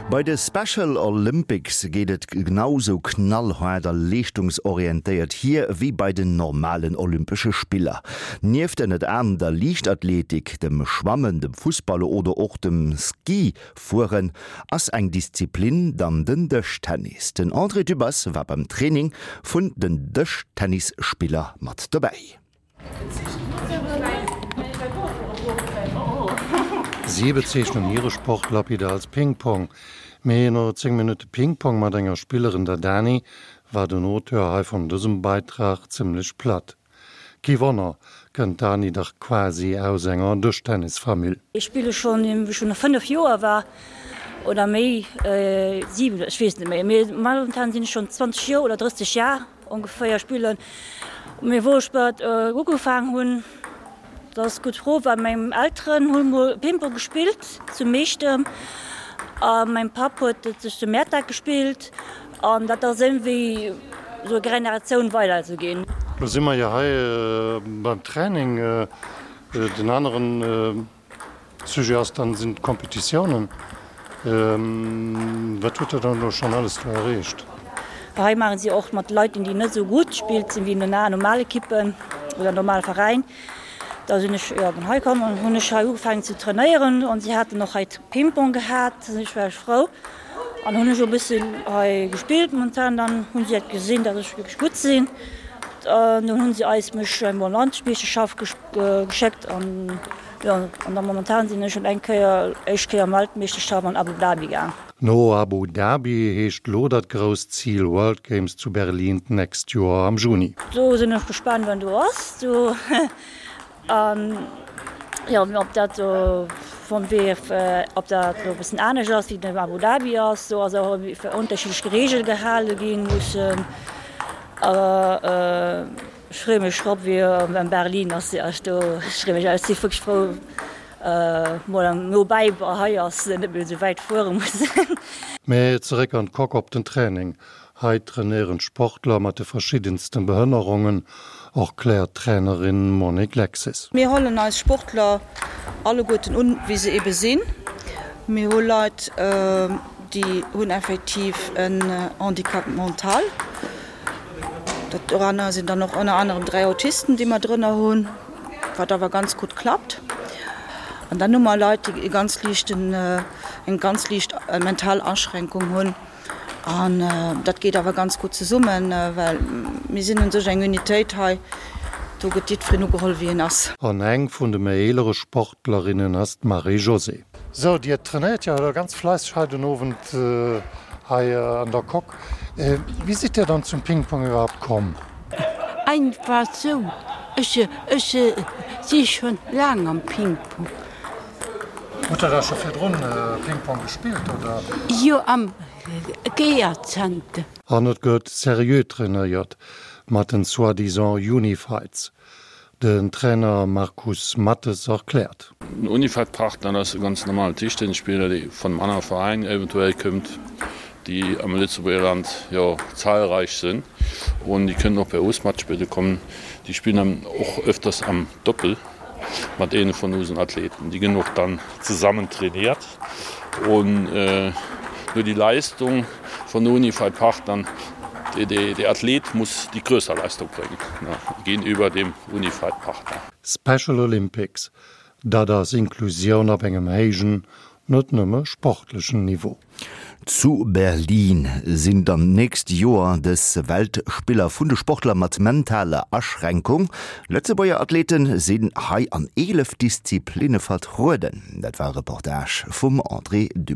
Bei de Special Olympics geet et genau sou knallhaart a leeschtungsorientéiert hier wéi bei den normalen Olympesche Spiller. Nieft ënnert anerem der Liichtathletik, dem Schwammen, dem Fussball oder och dem Ski-Fueren ass eng Disziplin dann den Dëschtennis. Den André Dübbers war beim Training vun den Dëschtennisspiller mat dobäi. Si bezeechnen hire Sport lapide als Ping-Pong. Mee no 10 Minutte Ping-Pong mat enger Spillerin, der Dani, war den Auteur hei vun dësem Beitrag zimmlech platt. Kee Wonner, kënnt d'Dani dach quasi aus enger Dëschtennisfamill. Ech spille schonn wéi ech schonn 5 Joer war oder méi, 7, ech weess net méi, mee momentan sinn ech schonn 20 Joer oder 30 Jar. Ongeféier spillen. Mee wou ech mat ugefaang hunn, dat ass gutt Fro, well meng Elteren hu mol Ping-Pong gespillt zu Meechtem a mäin Papp huet et sech zu Mäertert gespillt an dat ass iergendwéi sou Generatioun weider esou ginn. Lo si mer jo hei beim Training. Den aneren Sujet ass dann, sinn d'Competitiounen. Wat hutt Der dann elo schonn alles do erreecht? Hei maachen si och mat Leit, déi net esou gutt spillt sinn wéi in normal Ekippen oder normal Veräin. Da sinn ech jo hei komm an hunn ech hei ugefaangen ze trainéieren an si haten och hei Ping-Pong gehat, ech war frou an hunn ech e bëssen hei gespillt. Momentan dann hunn si et gesinn, datt ech wierklech gutt sinn an dunn hunn si eis mech emol an d'Landmeeschterschaft geschéckt an Jo, an da momentan sinn ech schon eng Kéier, éischt Kéier Weltmeeschterschaft an Abu Dhabi gaang. No Abu Dhabi heescht lo dat grousst Zil World Games zu Berlin d'nächst Joer am Juni. Do sinn ech gespaant wann do ass do an jo ob dat do vum WF ob dat lo e bëssen anescht ass wéi den Abu Dhabi ass. Do ass och unterschiddlech Reegel gehale ginn mussen awer. Ech freeë mech drop wéi am Berlin ass jo ech do ech freeë mech ech si wierklech frou mol no bäi hei ass net méi esou wäit fuere muss. Mee zeréck an d'Coque op den Training. Hei trainéieren d'Sportler mat de verschiddensten Behënnerongen, erkläert d'Trainerin Monique Lexes. Mir hollen eis Sportler alleguerten un wéi se ebe sinn. Mir hu Leit déi hunn effektiv en Handicap mental. Doranner sinn dann och ënner anerem 3 Autisten, déi mer drënner hunn, wat awer ganz gutt klappt. An dann hu mer Leit, déi e ganz liichten, eng ganz liicht mental Aschränkung hunn. An dat geet awer ganz gutt zesummen, well mir sinn un sech eng Unitéit hei, do gëtt jiddwereen ugeholl, wéi en ass. An eng vun de méi eelere Sportlerinnen ass d'Marie-Josée. Sou, Dir trainéiert jo elo ganz fleisseg hei den Owend hei an der Coque. Wéi sidd Dir dann zum Ping-Pong iwwerhaapt komm? Einfach sou, ech ech si schon laang am Ping-Pong. Hutt der da scho virdrun Ping-Pong gespillt, oder? Jo, am Geerzenter. An et gëtt seriö trainéiert mat den soi-disant Unifieds. Den Trainer Markus Mattes erkläert. Den Unified Partner ass e ganz normalen Tischtennisspiller, dee vun engem anere Veräin eventuell këmmt, déi am Lëtzebuerger Land jo zahlreich sinn un déi kënnen och bei us matspille kommen. Déi spillen dann och öfters am Doppel mat eene vun usen Athleten. Déi ginn och dann zesammen trainiert un no déi Leistung Von Unified Partnern, Der Athlet muss die größere Leistung bringen gegenüber dem Unified Partner. Special Olympics, dat ass Inklusioun op engem héijen, net nëmme sportlechen Niveau. Zu Berlin sinn dann d'nächst Joer dës Weltspiller vun de Sportler mat mentaler Aschränkung. Lëtzebuerger Athleten sinn hei an 11 Disziplinne vertrueden. Dat war e Reportage vum André Dübbers.